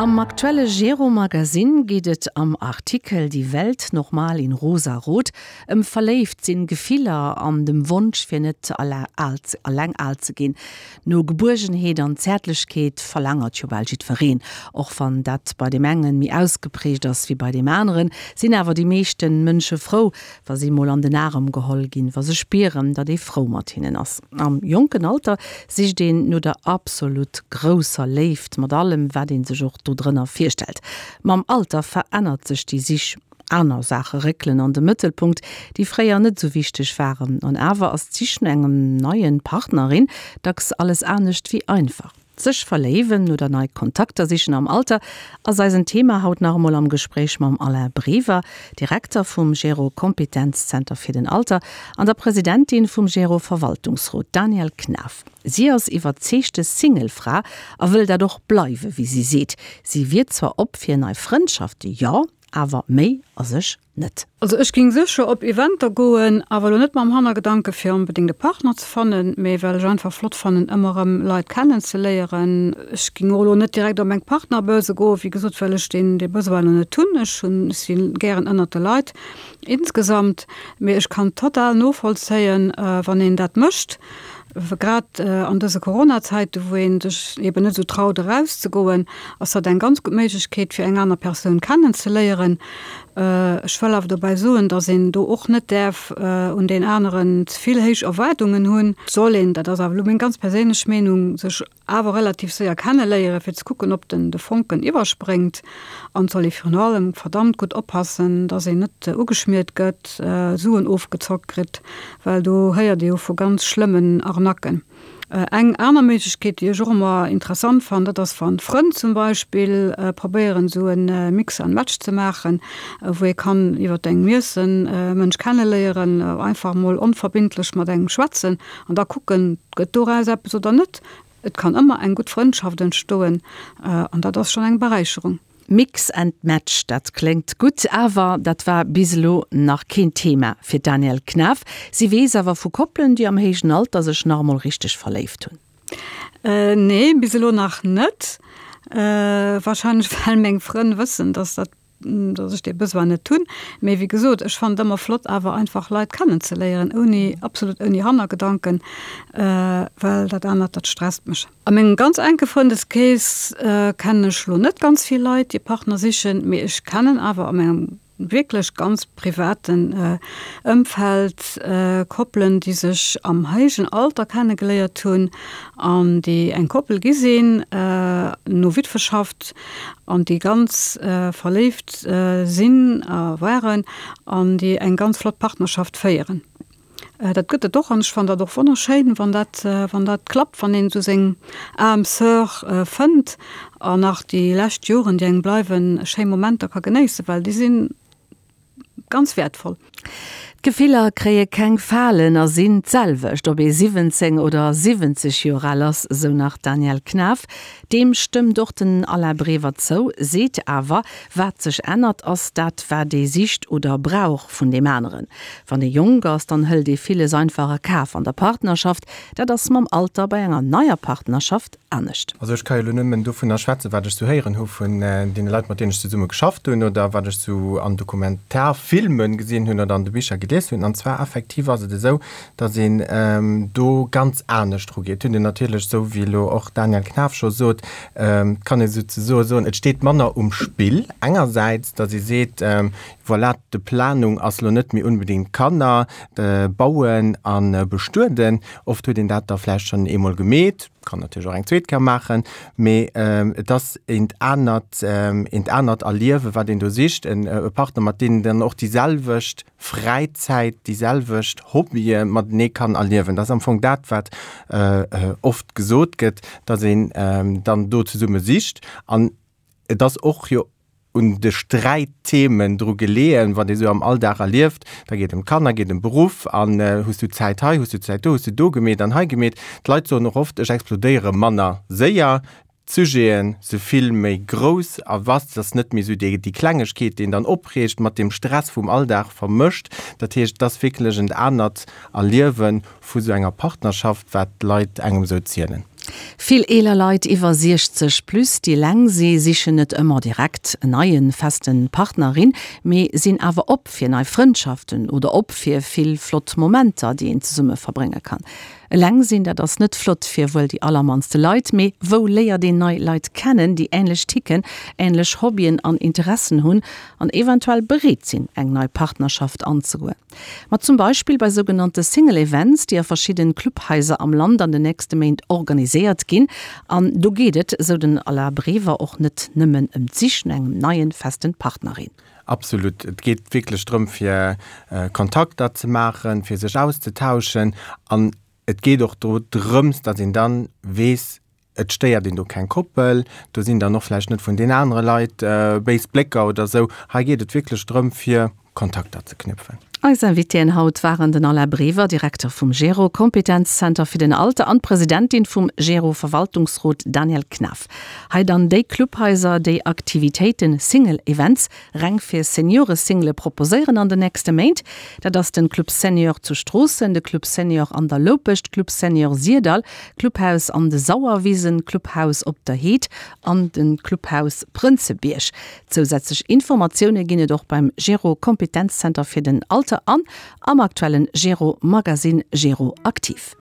Am aktuelle Gero Magazine geet et am Artikel Die Welt nochmal in rosa-rot ëm verléift sinn, Gefiller an dem Wonsch fir net alleng al ze ginn. No Gebuergenheet an Zäertlechkeet verlaangert jo bal jiddwereen. Och wann dat bei deem engen méi ausgeprägt ass wéi bei deem aneren, sinn awer déi meeschten Mënsche frou, wa si mol an den Arem geholl ginn, wa se spieren, datt ee frou mat hinnen ass. Am jonken Alter sicht een no der absolut grousser Léift, mat allem, wat ee sech och dodrënner virstellt. Mam Alter verännert sech déi Sich, aner Saache réckelen an de Mëttelpunkt, déi fréier net esou wichteg waren. An awer ass d'Sich no engem neien Partnerin dacks alles anescht wéi einfach. Sech verléiwen oder nei Kontakter sichen am Alter ass eisen Thema haut nach emol am Gespréich mam Alain Brever, Direkter vum Gero Kompetenzzenter fir den Alter an der Presidentin vum Gero Verwaltungsrot Danièle Knaff. Si ass iwwerzeegte Single-Fra a wëll dat och bleiwe wéi si seet. Si wier zwar op fir nei Frëndschafte, jo, awer méi a sech net. Also ech ging sécher op Eventer goen, awer elo net mam Hannergedanke fir onbedéngt e Partner ze fannen, mee well ech einfach flott fannen ëmmer erëm Leit kennen ze léieren. Ech ging och elo net direkt op eng Partnerbörse goen, wéi gesot, well ech deen dee Besoin elo net hunn. Ech hunn, ech si gären ënnert de Leit insgesamt, mee ech kann total novollzéien wann een dat mécht. Grad an dëse Corona-Zäiten, wou ee sech eben net esou traut erauszegoen, ass dat eng ganz gutt Méiglechkeet, fir eng aner Persoun kennenzeléieren. Ech wëll awer dobäi soen, datt een do och net däerf un deen aneren ze vill héich Erwaardungen hunn. Et soll een, dat ass awer elo meng ganz perséinlech Meenung, sech awer relativ séier kenneléieren, fir ze kucken, ob den de Fonken iwwerspréngt. An et soll ee virun allem verdammt gutt oppassen, dass een net ugeschmiert gëtt, Suen ofgezockt kritt, well do héiert ee jo vu ganz schlëmmen Arnacken. Eng aner Méiglechkeet, déi ech och ëmmer interessant fannen, dat ass, wann Frënn zum Beispill probéieren, esou e Mix and Match ze maachen, wou ee kann iwwer engem Iessen e Mënsch kenneléieren, einfach emol onverbindlech mat engem schwätzen an da kucken, Gëtt doraus eppes oder net? Et kann ëmmer eng gutt Frëndschaft entstoen an dat ass schonn eng Beräicherung. Mix and Match, dat kléngt gutt, awer dat war bis elo nach keen Thema fir d'Danièle Knaff. Si weess awer vu Koppelen, déi am héijen Alter sech nach emol richteg verléift hunn. Nee, bis elo nach net. Warscheinlech well meng Frënn wëssen, dass dat dass ech dee Besoin net hunn. Mee wéi gesot, ech fannen et ëmmer flott awer einfach Leit kennenzeléieren, ouni, absolut ouni Hannergedanken, well dat anert, dat stresst mech. A mengem ganz enke Frëndeskrees kennen ech lo net ganz vill Leit, déi Partner sichen, mee ech kennen awer a mengem wierklech ganz privaten Ëmfeld Koppelen, déi sech am héijen Alter kennegeléiert hunn an déi eng Koppel gi sinn no Witweschaft an déi ganz verléift sinn a waren an déi eng ganz flott Partnerschaft féieren. Dat gëtt et och an ech fannen dat och wonnerschéin, wann dat, wann dat klappt, wann een esou seng âme sœur fënnt an nach déi lescht Joren, déi engem bleiwen, schéi Momenter ka genéissen, well déi sinn ganz wäertvoll. D'Gefiller kréie keng Falen a sinn d'selwecht, ob ee 17 oder 70 Joer al ass, sou nach d'Danièle Knaff. Deem stëmmt och den Alain Brever zou, seet awer, wat sech ännert, ass dat, wat ee sicht oder brauch vun deem aneren. Wann ee jonk ass, dann hëlt ee villes einfach a Kaf an der Partnerschaft. Dat ass mam Alter bei enger neier Partnerschaft anescht. Also ech ka jo elo nëmmen dovunner schwätzen, wat ech sou héieren hu vun deene Leit, mat deenen ech zesumme geschafft hunn oder wat ech sou an Dokumentarfilme gesinn hunn oder an de Bicher gelies hunn. An zwar effektiv ass et esou, datt een do ganz anescht erugeet. Et huet een natierlech, esou wéi elo och d'Danièle Knaff scho sot, et kann ee souzesoe soen, et steet manner um Spill engersäits, datt ee seet, voilà, d'Planung ass elo net méi unbedéngt Kanner bauen a bestueden. Oft huet een dat da vläicht schonn eemol gemeet, kann natierlech och eng zweet Kéier maachen, mee et ass eent anert, eent anert Erliewen, wat een do sicht, en e Partner, mat deem een dann och déi selwecht Fräizäit, déi selwecht Hobbye matenee kann erliewen. Dat ass am Fong dat, wat oft gesot gëtt, datt een dann do zesumme sicht. An et ass och jo un de Sträitthemen dru geleeën, wat ee sou am Alldag erlieft. Da geet et ëm d'Kanner, geet ëm Beruff an hues du Zäit hei, hues du Zäit do, hues du do gemeet an hei gemeet. D'Leit soen och oft, ech explodéiere manner séier, d'Sujete si vill méi grouss a vast, et ass net méi sou déi Klengegkeet, déi een dann opreegt, mat dem Stress vum Alldag vermëscht. Dat heescht, et ass wierklech en anert Erliewe vu sou enger Partnerschaft, wat d'Leit engem sou zielen. Vill eeler Leit iwwer 60 plus, déi eleng si, sichen net ëmmer direkt en neien, festen Partner, in, mee sinn awer op fir nei Frëndschaften oder op fir vill flott Momenter, déi een zesumme verbrénge kann. Eleng sinn, dat ass net flott fir wuel déi allermannste Leit, mee wou léiert een nei Leit kennen, déi änlech ticken, änlech Hobbyen an Interessen hunn an eventuell bereet sinn, eng nei Partnerschaft anzegoen? Ma zum Beispill bei sougenannte Single Events, déi a verschidden Clubhaiser am Land an den nächste Méint organiséiert ginn. An do geet et, sou den Alain Brever, och net nëmmen ëm d'Sich no engem neien, festen Partner, in. Absolut. Et geet wierklech drëm, fir Kontakter ze maachen, fir sech auszetauschen. An et geet och do drëms, datt een dann weess, Et stéiert een do keng Koppel, do sinn dann och vläicht net vun den anere Leit béis Blécker oder esou. Hei geet et wierklech drëm, fir Kontakter ze knüpfen. Eis Invitéen haut waren den Alain Brever, Direkter vum GERO, Kompetenzzenter fir den Alter, an d'Presidentin vum GERO Verwaltungsrot Danièle Knaff. Hei dann déi Clubhaiser, déi Aktivitéiten, Single Events, reng fir Seniore-Single proposéieren an den nächste Méint. Dat ass den Club Senior zu Stroossen, de Club Senior an der Loupescht, Club Senior Syrdall, Clubhaus an de Sauerwisen, Clubhaus op der Heed an den Clubhaus Prënzebierg. Zousätzlech Informatioune ginn et och beim Gero Kompetenzzenter fir den Alter an am aktuellen Gero Magazine Gero Aktiv.